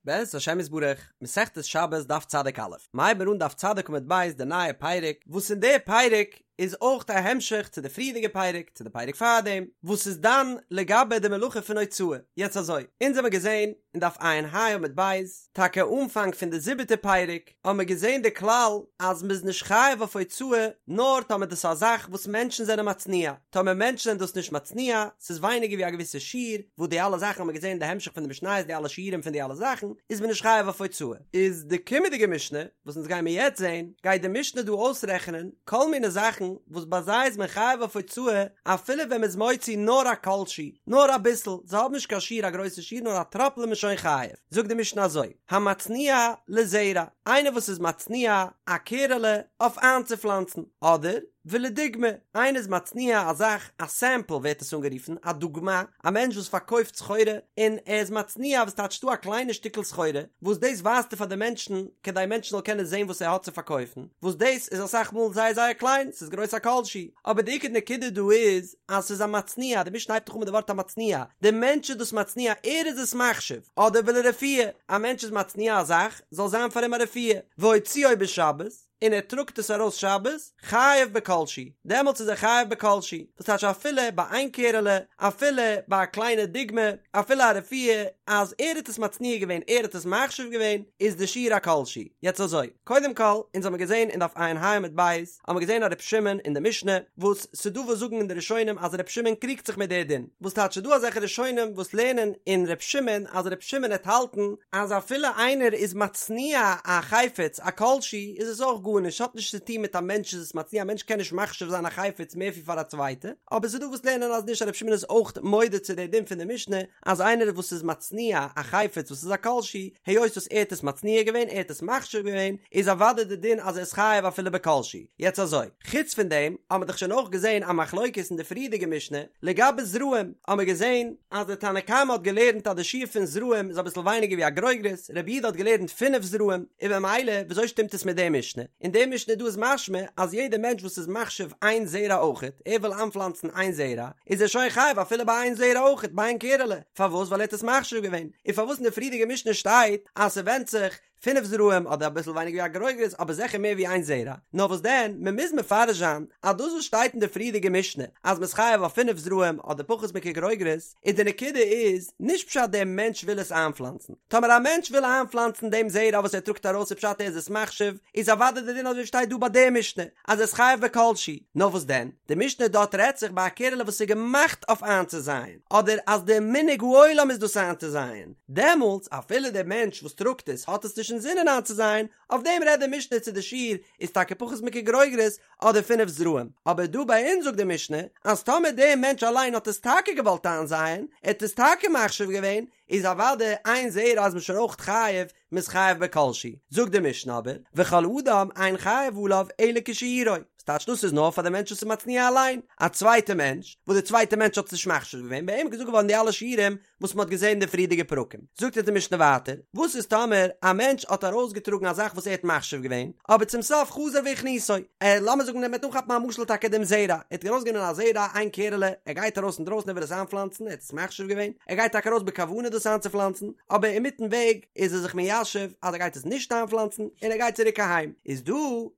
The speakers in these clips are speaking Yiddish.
בעזרת השם יתברך, מסכת שבת דף צדיק א', מ'הייבן מיר אן דף צדיק עמוד ב' די נייע פרק, וואס אין די פרק איז אויך א המשך צו די פריערדיגע פרק, צו די פרק פארדעם, וואס איז דן לגבי די מלאכה פון הוצאה. יעצט אזוי, אונז האמיר געזען אין דף ע"ה עמוד ב', טאקע אנפאנג פון די זיבעטע פרק, האבן מיר געזען די כלל אז מ'איז נישט חייב אויף הוצאה נאר טאמער דאס איז א זאך וואס מענטשן זענען מצניע, טאמער מענטשן זענען דאס נישט מצניע, ס'איז ווייניגער ווי א געוויסע שיעור, וואס די אלע זאכן האבן מיר געזען אין די המשך פון די משניות די אלע שיעורים פון די אלע זאכן, איז מען נישט חייב אויף הוצאה. איז די קומענדיגע משנה, וואס אונז גיימיר יעצט זען, גייט די משנה דא אויסרעכענען כל מיני זאכן וואס ביי זיי איז מען חייב אויף הוצאה אפילו ווען מ'איז מוציא נאר א כל שהוא, נאר אביסל, זיי האבן נישט קיין שיעור א גרויסע שיעור נאר א טראפל איז מען שוין חייב. זאגט די משנה אזוי. המצניע לזרע, איינער וואס איז מצניע א קערעלע אויף איינצופלאנצן, אדער ולדוגמא, איינער איז מצניע א זאך, א סעמפל ווערט עס אנגערופן, א דוגמא, א מענטש וואס פארקויפט סחורה, און ער איז מצניע וואס טייטש דא א קליינע שטיקל סחורה, וואס דאס ווייזט ער פאר די מענטשן, כדי מענטשן זאלן קענען זען וואס ער האט צו פארקויפן, וואס דאס איז אסאך מאל זייער זייער קליין, ס'איז גרויס א כל שהוא, אבער די עיקר נקודה דא איז, אז ס'איז א מצניע, די משנה הייבט דאך אן מיט די ווארט המצניע, די מענטש איז דאס מצניע, ער איז עס מחשיב, אדער ולרפואה, א מענטש איז מצניע א זאך, זאל זיין פאר אים א רפואה, והוציאו בשבת, און ער טראגט עס ארויס שבת, חייב בכל שהוא, דעמאלטס איז ער חייב בכל שהוא, דאס טייטש אפילו ביי איין קערעלע, אפילו ביי א קליינע דוגמא, אפילו א רפואה, אז ער האט עס מצניע געווען, ער האט עס מחשיב געווען, איז די שיעור א כל שהוא. יעצט אזוי, קודם כל, אונז האמיר געזען אין דף ע"ה עמוד ב', האבן מיר געזען א ר' שמעון אין די משנה, וואס ס'דא וואס זאגן אין די ראשונים אז ר' שמעון קריגט זיך מיט די דין, וואס טייטש ס'דא אזעלכע ראשונים וואס לערנען אין ר' שמעון אז ר' שמעון העט האלטן אז אפילו איינער איז מצניע א חפץ א כל שהוא איז עס אויך גארנישט ס'האט נישט צו טון מיט א מענטש איז עס מצניע א מענטש קען נישט מחשיב זיין א חפץ מער ווי פאר א צווייטע, אבער ס'דא וואס לערנען אז נישט אז ר' שמעון איז אויך מודה צו די דין פון די משנה אז איינער וואס איז מצניע א חפץ וואס איז א כל שהוא, היות וואס ער האט עס מצניע געווען, ער האט עס מחשיב געווען, איז אוודאי די דין אז ער איז חייב אפילו בכל שהוא. יעצט אזוי, חוץ פון דעם האבן מיר דאך שוין אויך געזען א מחלוקת אין די פריערדיגע משנה, לגבי זרעים, האבן מיר געזען אז די תנא קמא האט געלערנט אז די שיעור פון זרעים איז אביסל ווייניגער ווי א גרוגרת, רבי יהודה האט געלערנט פינף זרעים, און במילא וויאזוי שטימט עס מיט די משנה? אין די משנה דא איז משמע אז יעדער מענטש וואס איז מחשיב איין זרע אויכעט, ער וויל איינפלאנצן איין זרע, איז ער שוין חייב אפילו ביי איין זרע אויכעט, ביי איין קערעלע, פארוואס? ווייל ער האט עס מחשיב געווען, און פארוואס אין די פריערדיגע משנה שטייט אז ס'ווענדט זיך פינף זרעים אדער אביסל ווייניגער ווי א גרוגרת אבער זיכער מער ווי איין זרע, נאר וואס דען, מ'מוז מפרש זיין אז דאס וואס שטייט אין די פריערדיגע משנה אז מ'איז חייב אויף פינף זרעים אדער פחות מכגרוגרת, איז די נקודה איז נישט פשט דער מענטש וויל עס איינפלאנצן, טאמער א מענטש וויל איינפלאנצן דעם זרע וואס ער טראגט ארויס איז פשט ער איז עס מחשיב, איז אוודאי די דין אזוי ווי שטייט דא ביי די משנה אז ער איז חייב בכל שהוא, נאר וואס דען, די משנה דארט רעדט זיך ביי א קערעלע וואס איז געמאכט אויף איינצוזייען, אדער אז די מנהג העולם איז דאס איינצוזייען, דעמאלטס אפילו דער מענטש וואס טראגט עס האט עס נישט אינזינען איינצוזייען, אויף דעם רעדט די משנה צו די שיעור איז טאקע פחות מכגרוגרת אדער פינף זרעים, אבער דא ביי אונז זאגט די משנה אז טאמער דער מענטש אליין האט עס טאקע געוואלט איינזייען, ער האט עס טאקע מחשיב געווען, איז אוודאי איין זרע איז מען שוין אויך חייב, מ'איז חייב בכל שהוא. זאגט די משנה אבער, וכל אדם אין חייב עליו אלא כשיעורו, ס'טייטש דאס איז נאר פאר די מענטש וואס איז מצניע אליין, א צווייטע מענטש, וואס די צווייטע מענטש האט עס נישט מחשיב געווען, ביי אים איז געזאגט געווארן די אלע שיעורים וואס מ'האט געזען אין די פריערדיגע פרקים. זאגט אונז די משנה ווייטער, וואס איז טאמער א מענטש האט ארויסגעטראגן א זאך וואס ער האט מחשיב געווען, אבער צום סוף חזר והכניסו, ער, לאמיר זאגן מ'וועט אנכאפן א משל טאקע דעם זרע, ער האט ארויסגענומען א זרע, איין קערעלע, ער גייט ארויס אינדרויסן ער וויל עס איינפלאנצן, ער האט עס מחשיב געווען, ער גייט טאקע ארויס בכוונה דאס איינצופלאנצן, אבער אינמיטן וועג איז ער זיך מיישב אז ער גייט עס נישט איינפלאנצן, און ער גייט צוריק אהיים, איז דא,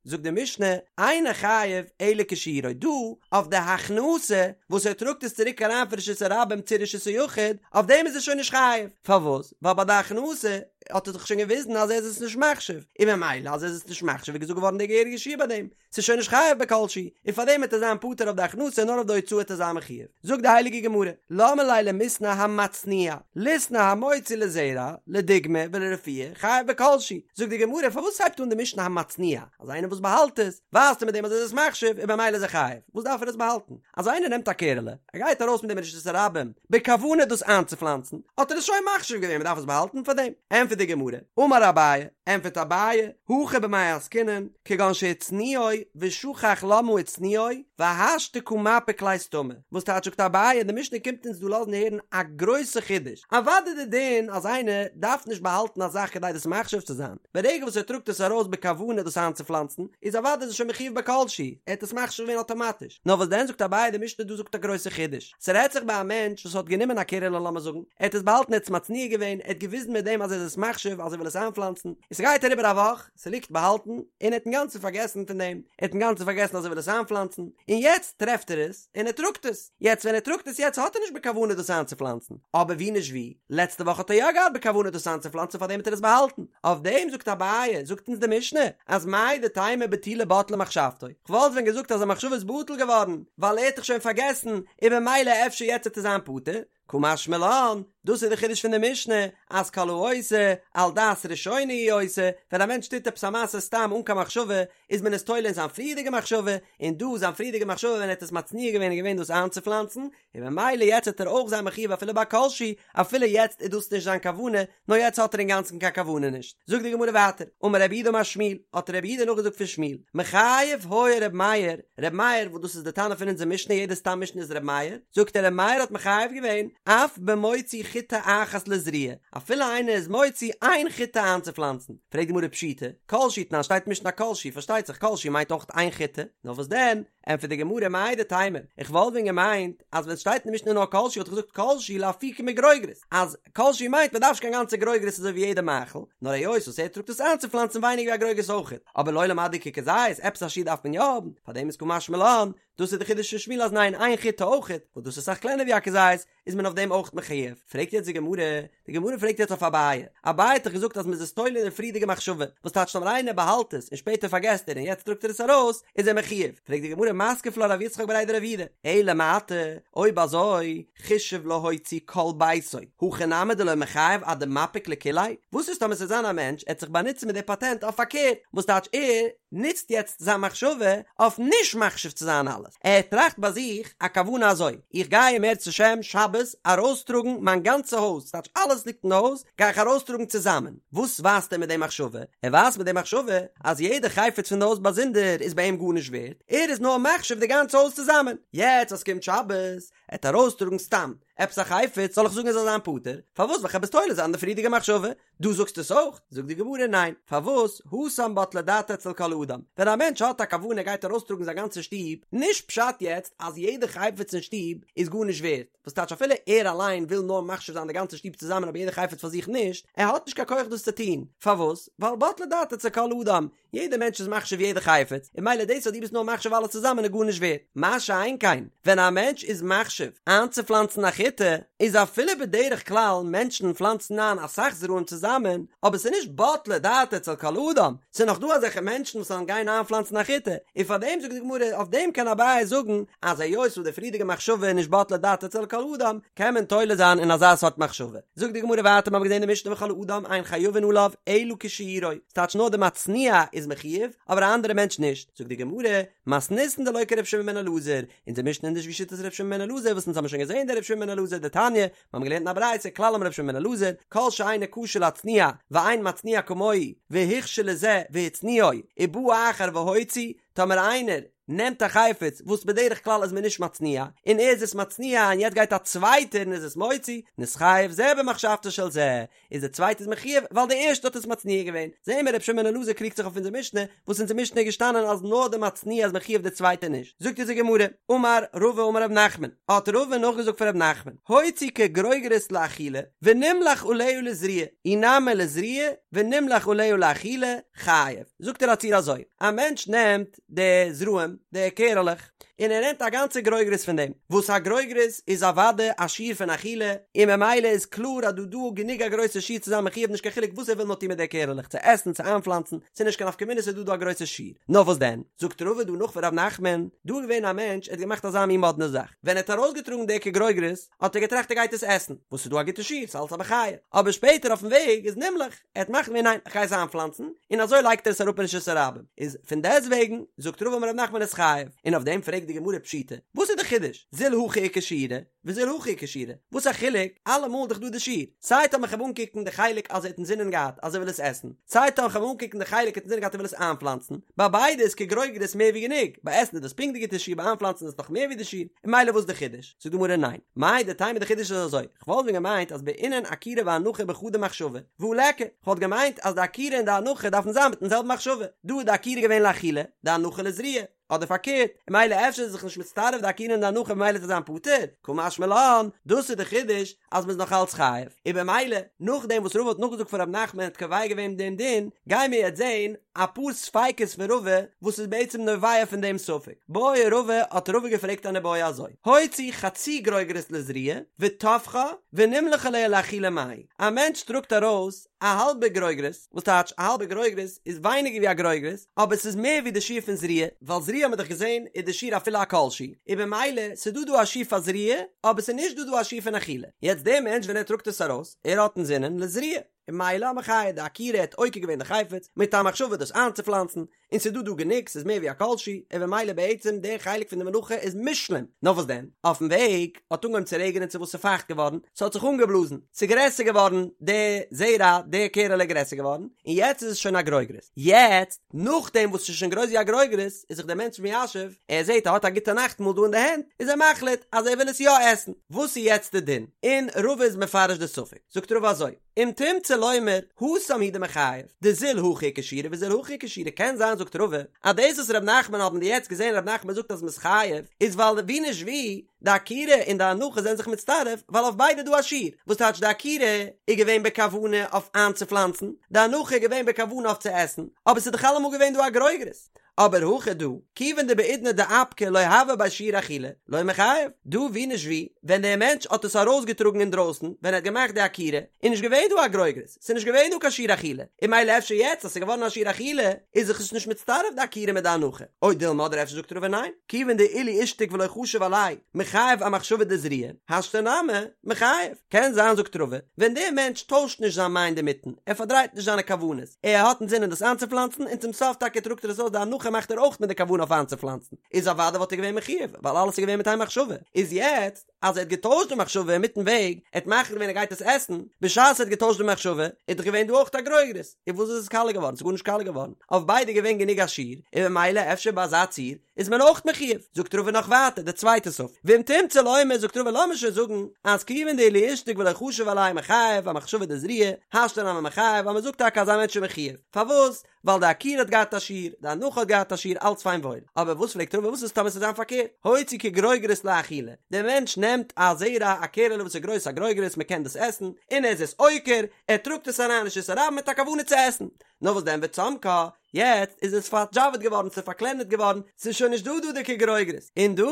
זאגט די משנה, אינו חייב אלא כשיעורו, דא, אויף די הכנסה, וואס ער טראגט עס צוריק אריין פון רשות הרבים צו רשות היחיד, אויף דעם איז ער שוין נישט חייב, פארוואס? ווייל ביי די הכנסה האט ער דאך שוין געוויזן אז ער איז עס נישט מחשיב, און ממילא אז ער איז עס נישט מחשיב איז געזאגט געווארן די געהעריגע שיעור ביי דעם, ס'איז שוין נישט חייב בכל שהוא, און פאר דעם וועט ער זיין פטור אויף די הכנסה נאר אויף די הוצאה וועט ער זיין מחויב. זאגט די הייליגע גמרא, למה ליה למיתנא המצניע, ליתני המוציא לזרע, לדוגמא ולרפואה, חייב בכל שהוא. זאגט די גמרא, פארוואס הייבט אן די משנה המצניע, אז איינער וואס באהאלט עס, ווייזט ער מיט דעם אז ער איז עס מחשיב, און במילא איז ער חייב, וואס דארף ער עס באהאלטן? אז איינער נעמט א קערעלע, ער גייט ארויס מיט דעם אין רשות הרבים, בכוונה דאס איינצופלאנצן, האט ער עס שוין מחשיב געווען, מען דארף עס באהאלטן פאר דעם? ענטפערט די גמרא, אמר אביי, ענטפערט אביי, הכא במאי עסקינן, כגון שהצניעו ושכח למה הצניעו, והשתא קא מפיק ליה סתמא, וואס טייטש זאגט אביי, די משנה קומט אונז דא לאזן הערן א גרויסע חידוש, אוודאי די דין אז איינער דארף נישט באהאלטן א זאך כדי דאס מחשיב צו זיין, ברגע וואס ער טראגט עס ארויס בכוונה דאס איינצופלאנצן, איז אוודאי איז ער שוין מחויב בכל שהוא, ער האט עס מחשיב געווען אטאמאטיש. נאר וואס דען זאגט אביי, די משנה דא זאגט א גרויסע חידוש, ס'רעדט זיך ביי א מענטש וואס האט גענומען א קערעלע לאמיר זאגן, ער האט עס באהאלטן ער האט עס מצניע געווען, ער האט געוויזן מיט דעם אז ער איז עס. מחשיב אז ער וויל עס איינפלאנצן, און ס'גייט אריבער א וואך, ס'ליגט באהאלטן, און ער האט אינגאנצן פארגעסן פון דעם, ער האט אינגאנצן פארגעסן אז ער וויל עס איינפלאנצן, און יעצט טרעפט ער עס, און ער טראגט עס, יעצט ווען ער טראגט עס יעצט האט ער נישט בכוונה דאס איינצופלאנצן, אבער ווי נישט ווי, לעצטע וואך האט ער יא געהאט בכוונה דאס איינצופלאנצן פארדעם האט ער עס באהאלטן, אויף דעם זאגט אביי, זאגט אונז די משנה, אז מהו דתימא בטולי בטלה מחשבתו, כ'וואלט ווען געזאגט אז זיין מחשבה איז בטל געווארן, ווייל ער האט דאך שוין פארגעסן, און במילא אפשר יעצט וועט ער זיין פטור, קא משמע לן, דאס איז די חידוש פון די משנה, אז כל העושה על דעת ראשונה הוא עושה, ווען א מענטש טוט עפעס א מעשה סתם אן קיין מחשבה, איז מען עס תולה אין זיין פריערדיגע מחשבה, און דא זיין פריערדיגע מחשבה ווען ער האט עס מצניע געווען איז געווען דאס איינצופלאנצן, און במילא יעצט וועט ער אויך זיין מחויב אפילו ביי כל שהוא, אפילו יעצט איז דאס נישט זיין כוונה, נאר יעצט האט ער אינגאנצן קיין כוונה נישט. זאגט די גמרא ווייטער, אמר רב יהודה אמר שמואל, האט רב יהודה נאכגעזאגט פון שמואל, מחייב היה ר' מאיר, ר' מאיר וואס דאס איז די תנא פון אונזער משנה יעדע סתם משנה איז ר' מאיר, זאגט ער ר' מאיר האט מחייב געווען, אף במוציא חיטה אחת לזריעה, אפילו איינער איז מוציא איין חיטה איינצופלאנצן, פרעגט די גמרא פשיטא, כל שהוא תנן שטייט משנה כל שהוא, פארשטייט זיך כל שהוא מיינט אויך איין חיטה, נאר וואס דען, ענטפערט די גמרא מהו דתימא, איך וואלט ווען געמיינט אז ווען סשטייט אין די משנה נאר כל שהוא וואלט איך געזאגט כל שהוא לאפוקי מגרוגרת, אז כל שהוא מיינט מען דארף נישט קיין גאנצע גרוגרת אזוי ווי יעדע מאכל, נאר היות וואס ער טראגט עס איינצופלאנצן ווייניגער ווי א גרוגרת אויכעט, אבער לעולם עד דאיכא כזית, עפעס א שיעור דארף מען יא האבן, פארדעם איז קא משמע לן, דאס איז די חידוש פון שמואל אז ניין איין חיטה אויכעט, וואס דאס איז אסאך קלענער ווי א כזית, איז מען אויף דעם אויך מחויב? פרעגט יעצט די גמרא, די גמרא פרעגט יעצט אויף אביי, אביי האט דאך געזאגט אז מ'איז עס תולה אין די פריערדיגע מחשבה, וואס טייטש טאמער איינער באהאלט עס און שפעטער פארגעסט ער און יעצט טראגט ער עס ארויס, איז ער מחויב? פרעגט די גמרא מתקיף לה רב יצחק בריה דרב יהודה, אלא מעתה, אויב אזוי, חישב להוציא כל ביתו, הכי נמי דלא מיחייב עד דמפיק לכוליה? וואס איז טאמער ס'זאל זיין א מענטש, ער האט זיך באנוצט מיט די פאטענט אויף פארקערט, וואס טייטש ער נוצט יעצט זיין מחשבה אויף נישט מחשיב צו זיין אלעס, ער טראכט ביי זיך א כוונה אזוי, איך גיי אם ירצה השם שבת ארויסטראגן מיין גאנצע הויז, ס'טייטש אלעס ליגט אין די הויז, גיי איך ארויסטראגן צוזאמען. וואס ווייזט ער מיט די מחשבה? ער ווייזט מיט די מחשבה אז יעדע חפץ פון די הויז באזונדער איז ביי אים גארנישט ווערט, ער איז נאר מחשיב די גאנצע הויז צוזאמען. יעצט אז ס'קומט שבת, ער וועט ארויסטראגן סתם עפעס א חפץ, זאל איך זאגן ער זאל זיין פטור? פארוואס? ווייל כ'האב עס תולה זיין אין די פריערדיגע מחשבה. דו זאגסט עס אויך? זאגט די גמרא ניין, פארוואס? התם בטלה דעתו אצל כל אדם, ווען א מענטש האט א כוונה ער גייט ארויסטראגן זיין גאנצע שטוב, נישט פשט יעצט אז יעדע חפץ אין שטוב איז גארנישט ווערט, וואס טייטש אפילו ער אליין וויל נאר מחשיב זיין די גאנצע שטוב צוזאמען אבער יעדע חפץ פאר זיך נישט, ער האט נישט קיין כח דאס צו טון, פארוואס? ווייל בטלה דעתו אצל כל אדם, יעדער מענטש איז מחשיב יעדע חפץ, און ממילא דאס אז דו ביסט נאר מחשיב אלעס צוזאמען איז גארנישט ווערט. מה שאין כן, ווען א מענטש איז מחשיב איינצופלאנצן א חיטה, איז אפילו בדרך כלל מענטשן פלאנצן איין אסאך זרעים צוזאמען, אבער ס'איז נישט בטלה דעתו אצל כל אדם, ס'איז נאך דא אזעלכע מענטשן וואס וועלן גיין איינפלאנצן א חיטה, און פארדעם זאגט די גמרא, אויף דעם קען אביי זאגן, אז היות וואס די פריערדיגע מחשבה איז נישט בטלה דעתו אצל כל אדם, קען מען תולה זיין אין אזא סארט מחשבה. זאגט די גמרא ווייטער, מ'האט געזען די משנה וכל אדם אין חייבין עליו אלא כשיעורו, ס'טייטש נאר די מצניע איז מחויב, אבער א אנדערע מענטש נישט. זאגט די גמרא, מתניתין דלא כר' שמעון בן אלעזר, אונזער משנה איז נישט ווי שיטת ר' שמעון בן אלעזר וואס אונז האבן שוין געזען דער ר' שמעון בן אלעזר דתניא, מיר האבן געלערנט אין א ברייתא כלל אמר ר' שמעון בן אלעזר, כל שאינו כשר להצניע ואין מצניע כמוהו והוכשר לזה והצניעו ובא אחר והוציא, טאמער איינער נעמט א חפץ וואס בדרך כלל איז מען נישט מצניע, און ער איז עס מצניע און יעצט גייט א צווייטער און איז עס מוציא, נתחייב זה במחשבתו של זה, איז דער צווייטער איז מחויב ווייל דער ערשטער האט עס מצניע געווען, זעהן מיר ר' שמעון בן אלעזר קריגט זיך אויף אונזער משנה, וואס אונזער משנה איז געשטאנען אז נאר דער מצניע איז מחויב דער צווייטער נישט, זאגט אונזער גמרא, אמר רבא אמר ר' נחמן, האט רבא נאכגעזאגט פון ר' נחמן, הוציא כגרוגרת לאכילה, ונמלך עליה לזריעה, אי נמי לזריעה, ונמלך עליה לאכילה, חייב. זאגט ער א ציור אזוי, א מענטש נעמט די זרעים, די קערעלעך, און ער נעמט א גאנצע גרוגרת פון דעם, וואס א גרוגרת איז אוודאי א שיעור פון אכילה, און ממילא איז קלאר אז דא דא גענוג א גרויסע שיעור צו זיין מחויב נישט קיין חילוק וואס ער וויל נאר טון מיט די קערעלעך, צו עסן צו איינפלאנצן, ס'איז נישט קיין נפקא מינה ס'איז דא דא א גרויסע שיעור. נאר וואס דען, זאגט רבא דא נאך פון ר' נחמן, דא איז געווען א מענטש ער האט געמאכט אזא מין מאדנע זאך, ווען ער האט ארויסגעטראגן די כגרוגרת, האט ער געטראכט ער גייט עס עסן, וואס איז דא א גוטע שיעור, ס'איז אלץ א מחיה, אבער שפעטער אויפן וועג איז נמלך, ער האט מחליט געווען ניין איך גיי עס איינפלאנצן, און אזוי לייגט ער עס אראפ אין רשות הרבים, איז פון דעסט וועגן זאגט רבא אמר ר' נחמן איז חייב, און אויף דעם פרעגט די גמרא פשיטא, וואס איז די חידוש, זיל הכא איכא שיעורא, וזיל הכא איכא שיעורא, וואס א חילוק, אלעמאל איז דאך דא די שיעור, סיי טאמער כ'וועל אנקוקן די חלק אז ער האט אינזינען געהאט אז ער וויל עס עסן, סיי טאמער כ'וועל אנקוקן די חלק ער האט אינזינען געהאט ער וויל עס איינפלאנצן, ביי ביידע איז כגרוגרת מער ווי גענוג, ביי עסן איז דאס פונקט די גוטע שיעור ביי איינפלאנצן איז עס נאך מער ווי די שיעור, און ממילא וואס איז די חידוש? זאגט די גמרא ניין, מהו דתימא די חידוש איז אזוי, כ'וואלט ווען געמיינט אז בעינן עקירה והנחה בחדא מחשבה, והא ליכא, כ'וואלט געמיינט אז די עקירה און די הנחה דארפן זיין מיטן זעלבן מחשבה, דא איז די עקירה געווען לאכילה, די הנחה לזריעה. אדער פארקערט, און ממילא אפשר איז זיך נישט מצטרף די עקירה און די הנחה ממילא וועט ער זיין פטור, קא משמע לן, דאס איז די חידוש אז מ'איז נאך אלץ חייב, און במילא נאכדעם וואס רבא האט נאכגעזאגט פון ר' נחמן און האט קובע געווען דעם דין, גייען מיר יעצט זען אפאר ספיקות פון רבא וואס איז בעצם נובע פון דעם ספק. בעי רבא האט רבא געפרעגט אן איבעיא אזוי, הוציא חצי גרוגרת לזריעה וטפחה ונמלך עליה לאכילה מהו, א מענטש טראגט ארויס א האלבע גרוגרת, וואס טייטש א האלבע גרוגרת איז ווייניגער ווי א גרוגרת, אבער ס'איז מער ווי די שיעור פון זריעה, ווייל זריעה האט מען דאך געזען איז די שיעור אפילו א כל שהוא, און במילא ס'איז דא דא א שיעור פאר זריעה, אבער ס'איז נישט דא דא א שיעור פון אכילה. יעצט דער מענטש ווען ער טראגט עס ארויס, ער האט אינזינען לזריעה, און ממילא א מחיה, די עקירה האט עוקר געווען די חפץ, מיט א מחשבה דאס איינצופלאנצן, און ס'איז דא דא גענוג, ס'איז מער ווי א כל שהוא, און במילא בעצם דער חלק פון די מלאכה איז מושלם, נאר וואס דען, אויפן וועג האט אנגעהויבן צו רעגענען צו וואס ס'איז פייכט געווארן, ס'האט זיך אנגעבלאזן, ס'איז גרעסער געווארן, די זרע, די קערעלע איז גרעסער געווארן, און יעצט איז עס שוין א גרוגרת. יעצט, נאכדעם וואס ס'איז שוין גרויס ווי א גרוגרת, איז זיך דער מענטש מיישב, ער זעט ער האט א גוטע נאכטמאל דא אין די הענט, איז ער מחליט אז ער וויל עס יא עסן. וואס איז יעצט די דין? און רבא איז מפרש די ספק, זאגט רבא אזוי, אם תמצא לומר, התם הוא דמיחייב, דזיל הכא איכא שיעורא וזיל הכא איכא שיעורא, קען זיין זאגט רבא, אז דאס וואס ר' נחמן האבן מיר יעצט געזען ר' נחמן זאגט אז מ'איז חייב, איז ווייל ווי נישט ווי, די עקירה און די הנחה זענען זיך מצטרף, ווייל אויף ביידע איז דא א שיעור, וואס טייטש די עקירה איז געווען בכוונה אויף איינצופלאנצן, די הנחה איז געווען בכוונה אויף צו עסן, אבער ס'איז דאך אלעמאל געווען דא א גרוגרת. אבער הכא דא, כיוון דבעידנא דאפקה לא הוה ביה שיעור אכילה, לא מיחייב, דא ווי נישט ווי, ווען דער מענטש האט עס ארויסגעטראגן אינדרויסן, ווען ער האט געמאכט די עקירה, איז נישט געווען דא א גרוגרת, ס'איז נישט געווען דא קיין שיעור אכילה, און ממילא אפשר יעצט אז ס'איז געווארן א שיעור אכילה, איז זיך עס נישט מצטרף די עקירה מיט די הנחה, או דילמא אדער אפשר זאגט רבא ניין, כיוון דאילו אישתיק ולא חשיב עליה, מיחייב אמחשבה דזריעה, השתא נמי, מיחייב. קען זיין זאגט רבא, ווען דער מענטש טוישט נישט זיין מיינד אינמיטן, ער פארדרייט נישט זיינע כוונות, ער האט אינזינען דאס איינצופלאנצן און צום סוף טאקע טראגט ער עס אויס די הנחה מאכט ער אויך מיט די כוונה אויף איינצופלאנצן, איז אוודאי וואלט ער געווען מחיוב, ווייל אלעס איז געווען מיט איין מחשבה, איז יעצט אז ער האט געטוישט די מחשבה אינמיטן וועג, ער האט מחליט געווען ער גייט עס עסן, בשעת ער האט געטוישט די מחשבה, איז דאך געווען דא אויך א גרוגרת, און וואס איז עס קאליע געווארן? ס'איז גארנישט קאליע געווארן, אויף ביידע איז געווען גענוג א שיעור, און ממילא אפשר ביי אזא ציור איז מען אויך מחיוב, זאגט רבא נאך ווייטער די צווייטע ספק, ואם תמצא לומר זאגט רבא לאמיר שוין זאגן אז כיוון דאילו אישתיק ולא חשיב עליה מיחייב אמחשבה דזריעה, השתא נמי מיחייב אז מען זאגט טאקע אז א מענטש איז מחיוב, פארוואס? ווייל די עקירה האט געהאט א שיעור, די הנחה האט געהאט א שיעור אלץ פיין וואויל, אבער וואס פרעגט רבא וואס איז טאמער ס'זאל זיין פארקערט, הוציא כגרוגרת לאכילה, דער מענטש נעמט א זרע א קערעלע וואס איז גרויס א גרוגרת מען קען דאס עסן, און ער איז עס עוקר, ער טראגט עס אריין רשות הרבים מיט א כוונה צו עסן, נאר וואס דען וצמקה, יעצט איז עס פארדזשאוועט געווארן, ס'איז פארקלענערט געווארן, ס'איז שוין נישט דא דא די כגרוגרת, און דא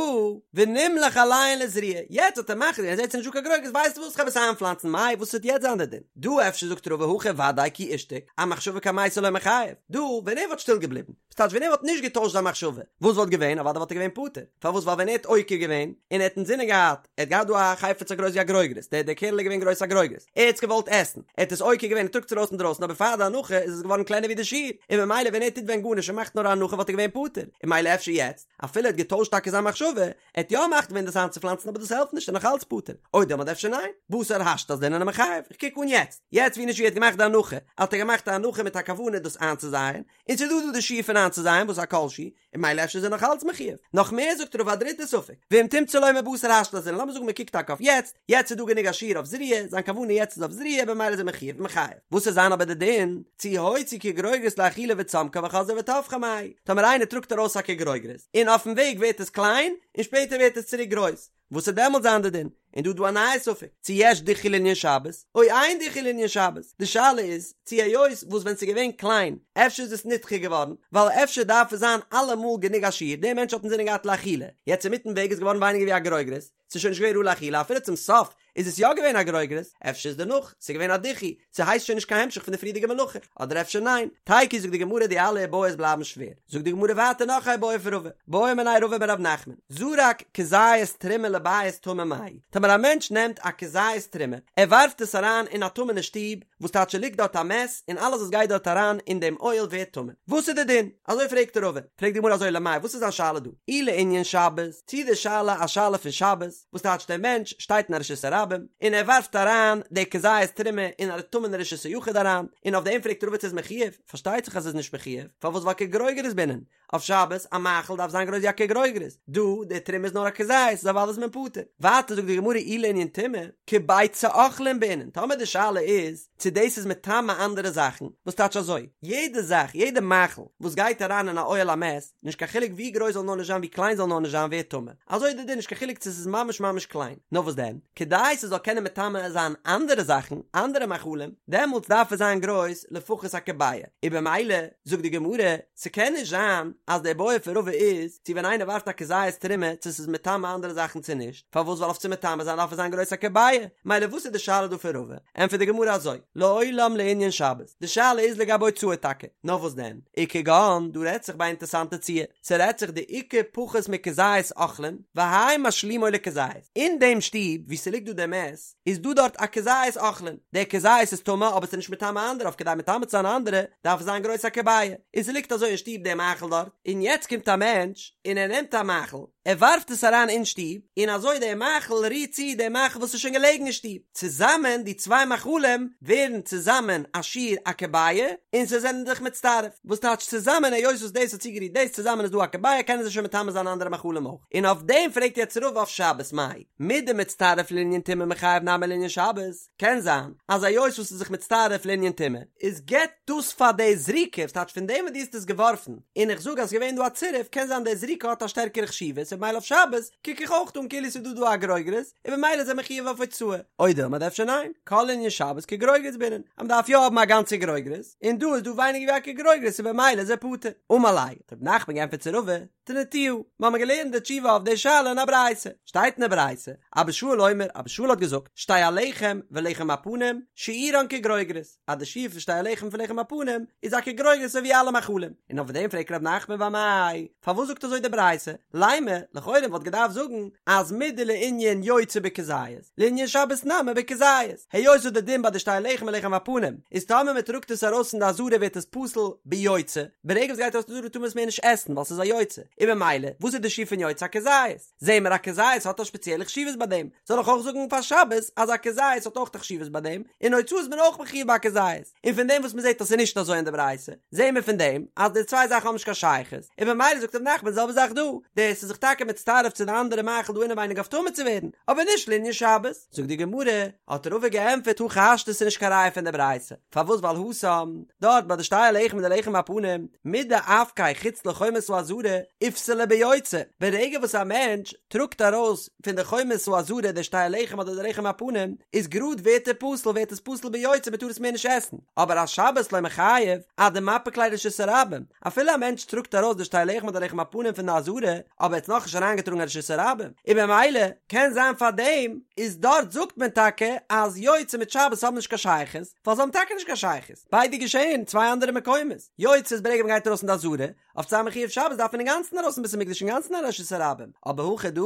ונמלך עליהן לזריעה, יעצט האט ער מחליט געווען, ער זעט ס'איז נישט דא קיין גרוגרת, ווייסט וואס כ'וועל עס איינפלאנצן, מאי וואס וועט יעצט זיין די דין? דא אפשר זאגט רבא הכא ודאי כי אישתיק, אמחשבה קמייתא לא מיחייב, דא ווען ער וואלט שטיל געבליבן, וואס טייטש ווען ער וואלט נישט געטוישט זיין מחשבה, וואס וואלט געווען? אוודאי וואלט ער געווען פטור, פארוואס ווייל ווען ער האט עוקר געווען, און ער האט אינזינען געהאט, ער האט געהאט דא א חפץ א גרויס ווי א גרוגרת, דער דער קערל איז געווען גרויס א גרוגרת, ער האט עס געוואלט עסן, ער האט עס עוקר געווען, ער טראגט עס ארויס אינדרויסן, אבער פאר די הנחה איז עס געווארן קלענער ווי די שיעור, און ממילא ווען ער טוט ווען גארנישט און מאכט נאר א הנחה וואלט ער געווען פטור, און ממילא אפשר יעצט, אפילו ער האט געטוישט טאקע זיין מחשבה, ער האט יא מחליט געווען דאס איינצופלאנצן אבער דאס העלפט נישט ער איז נאך אלץ פטור, או דילמא אדער אפשר ניין, בתר השתא אזלינן ומיחייב, איך קוק אן יעצט, יעצט ווי נישט ווי ער האט געמאכט די הנחה, האט ער געמאכט א הנחה מיט א כוונה דאס איינצוזייען, און ס'איז דא דא די שיעור פון איינצוזייען וואס איז א כל שהוא, און ממילא אפשר איז ער נאך אלץ מחיוב. נאך מער זאגט רבא א דריטע ספק, ואם תמצא לומר בתר השתא אזלינן, לאמיר זאגן מען קוקט טאקע אויף יעצט, יעצט איז דא גענוג א שיעור אויף זריעה, זיין כוונה יעצט איז אויף זריעה במילא איז ער מחיוב ומיחייב. וואס וועט זיין אבער די דין, צו הוציא כגרוגרת לאכילה וצמקה וחזרה וטפחה מאי, טאמער איינער טראגט ארויס א כגרוגרת, און אויפן וועג ווערט עס קליין, און שפעטער ווערט עס צוריק גרויס, וואס וועט דעמאלט זיין די דין? און דא איז דא א נייע ספק, צו יש דיחוי לענין שבת, או אין דיחוי לענין שבת, די שאלה איז, צו היות וואס ווען ס'איז געווען קליין, אפשר איז עס נדחה געווארן, ווייל אפשר דארף עס זיין אלעמאל גענוג א שיעור, דער מענטש האט אינזינען געהאט לאכילה, יעצט אינמיטן וועג איז געווארן ווייניגער ווי א גרוגרת, ס'איז שוין נישט געווען ראוי לאכילה אפילו צום סוף איז עס יא געווען א גרוגרת, אפשר איז דערנאך ס'איז געווען א דיחוי, ס'הייסט שוין נישט קיין המשך פון די פריערדיגע מלאכה, אדער אפשר ניין, תיקו זאגט די גמרא די אלע איבעיות בלייבן שווער, זאגט די גמרא ווייטער נאך א איבעיא פון רבא, בעא מיניה רבא מרב נחמן, זרק כזית תרומה לבית טמא מהו, טאמער א מענטש נעמט א כזית תרומה, ער ווארפט עס אריין אין א טמא'נע שטוב, וואס טייטש ס'ליגט דארט א מת, און אלעס וואס גייט דארט אריין אין דעם אוהל ווערט טמא, וואס איז די דין? אזוי פרעגט רבא, פרעגט די גמרא אזוי למאי וואס איז זיין שאלה דא? אי לענין שבת, צי די שאלה א שאלה פון שבת, וואס טייטש דער מענטש שטייט אין א רשות הרבים און ער ווארפט אריין די כזית תרומה אין א טמא'נע רשות היחיד אריין, און אויף דעם פרעגט רבא צו איז מחיוב, פארשטייט זיך אז עס איז נישט מחיוב, פארוואס ווייל כגרוגרת בעינן? אויף שבת א מאכל דארף זיין גרויס ווי א כגרוגרת, דא די תרומה איז נאר א כזית איז אוודאי איז מען פטור. ווייטער זאגט די גמרא אי לענין טומאה, כביצה אוכלין בעינן, טאמער די שאלה איז צו דאס איז מטמא אנדערע זאכן, וואס טייטש אזוי, יעדע זאך, יעדע מאכל וואס גייט אריין אין א אוהל המת, נישט קיין חילוק ווי גרויס זאל נאר נישט זיין ווי קליין זאל נאר נישט זיין ווערט טמא, אזוי איז די דין נישט קיין חילוק צו ס'איז ממש ממש קליין, נאר וואס דען, כדי ס'זאל קענען מטמא זיין אנדערע זאכן, אנדערע מאכלים, דעמאלטס דארף עס זיין גרויס לפחות א כביעה, און במילא זאגט די גמרא, ס'קען נישט זיין אז די בעיא פון רבא איז צו ווען איינער ווארפט א כזית תרומה צו ס'איז מטמא אנדערע זאכן צו נישט, פארוואס ווייל אויף צו מטמא זיין דארף עס זיין גרויס א כביעה, מילא וואס איז די שאלה דא פון רבא? ענטפערט די גמרא אזוי, לעולם לענין שבת, די שאלה איז לגבי הוצאה טאקע, נאר וואס דען, וכגון, דא רעדט זיך ביי א אינטערסאנטע ציור, ס'רעדט זיך דאיכא פחות מכזית אוכלין, והאי משלימו לכזית, אין דעם שטוב וואו ס'ליגט דא דער מת, איז דא דארט א כזית אוכלין, דער כזית איז טמא אבער ס'איז נישט מטמא אנדערע, אויף כדי מטמא צו זיין אנדערע דארף עס זיין גרויס א כביעה, און ס'ליגט אזוי אין שטוב דער מאכל דארט, און יעצט קומט א מענטש און ער נעמט א מאכל, ער ווארפט עס אריין אין שטוב, און אזוי דער מאכל רירט צו דער מאכל וואס איז שוין געלעגן אין שטוב, צוזאמען די צוויי מאכלים ווערן צוזאמען א שיעור א כביעה, און זיי זענען זיך מצטרף, וואס טייטש צוזאמען היות וואס דאס האט צוגערירט דאס צוזאמען איז דא א כביעה קענען זיי שוין מטמא זיין אנדערע מאכלים אויך, און אויף דעם פרעגט יעצט רבא אויף שבת מאי מדמצטרף לענין טומאה מיחייב נמי לענין שבת, קען זיין אז היות וואס איז זיך מצטרף לענין טומאה איז געבט דאס פאר די זריקה, וואס טייטש פון דעם וואס דו האסט עס געווארפן און איך זאג אז ס'געווען דא א צירוף קען זיין די זריקה האט א שטערקערע חשיבות און במילא אויף שבת קוק איך אויך אן כאילו ס'איז דא דא א גרוגרת און במילא איז ער מחויב אויף הוצאה או דילמא אדער אפשר ניין כל לענין שבת כגרוגרת בעינן אז מ'דארף יא האבן א גאנצע גרוגרת און דא איז דא ווייניגער ווי א כגרוגרת און במילא איז ער פטור אמר ליה האט רב נחמן געענטפערט צו רבא תניתוה, מיר האבן געלערנט די תשובה אויף די שאלה אין א ברייתא, שטייט אין די ברייתא, אבא שאול אומר, אבא שאול האט געזאגט, שתי הלחם ולחם הפנים, שיעורן כגרוגרת, אז די שיעור פון שתי הלחם פון לחם הפנים איז א כגרוגרת אזוי ווי אלע מאכלים, און אויף דעם פרעגט ר' נחמן ואמאי, פארוואס זאגט אזוי די ברייתא, לימא, לכאורה וואלט געדארפט זאגן אז מדלענין יוצא בכזית, לענין שבת נמי בכזית, היות וואס די דין ביי די שתי הלחם און לחם הפנים איז טאמער מען טראגט עס ארויס פון די עזרה ווערט עס פסול ביוצא, ברגע וואס גייט ארויס פון די עזרה טאר מען עס מער נישט עסן ווייל ס'איז א יוצא, און במילא וואס איז די שיעור פון יוצא א כזית? זעהן מיר א כזית האט א שפעציעלע חשיבות ביי דעם, זאל איך אויך זאגן פאר שבת אז א כזית האט אויך א חשיבות ביי דעם, און הוצאה איז מען אויך מחויב ביי א כזית, און פון דעם וואס מען זעהט אז ס'איז נישט אזוי אין די ברייתא, זעהן מיר פון דעם אז די צוויי זאכן האבן נישט קיין שייכות, און במילא זאגט ר' נחמן די זעלבע זאך דא, דאס איז זיך טאקע מצטרף צו די אנדערע מאכל דא אינעווייניג אויף טמא צו ווערן, אבער נישט לענין שבת. זאגט די גמרא, האט רבא געענטפערט הכי השתא ס'איז נישט קיין ראיה פון די ברייתא, פארוואס ווייל התם, דארט ביי די שתי הלחם און די לחם הפנים, מדאפקיה חוץ לחומת העזרה, איפסליה ביוצא, ברגע וואס א מענטש טראגט ארויס פון די חומת העזרה די שתי הלחם אדער די לחם הפנים, איז גראד ווערט ער פסול ווערט עס פסול ביוצא מ'טאר עס מער נישט עסן, אבער אשבת לא מיחייב, עד דמפיק ליה לרשות הרבים, אפילו א מענטש טראגט ארויס די שתי לחם אדער לחם הפנים פון די עזרה, אבער ער האט נאכנישט אריינגעטראגן אין רשות הרבים, און במילא קען זיין פאר דעם איז דארט זאגט מען טאקע אז יוצא מיט שבת האבן נישט קיין שייכות, ווייל זיי האבן טאקע נישט קיין שייכות, ביידע געשעהן אין צוויי אנדערע מקומות, יוצא איז ברגע מען גייט ארויס אין די עזרה, אויף צו זיין מחויב שבת דארף מען אינגאנצן ארויס אין בית המקדש אינגאנצן אין רשות הרבים, אבער הכא דא,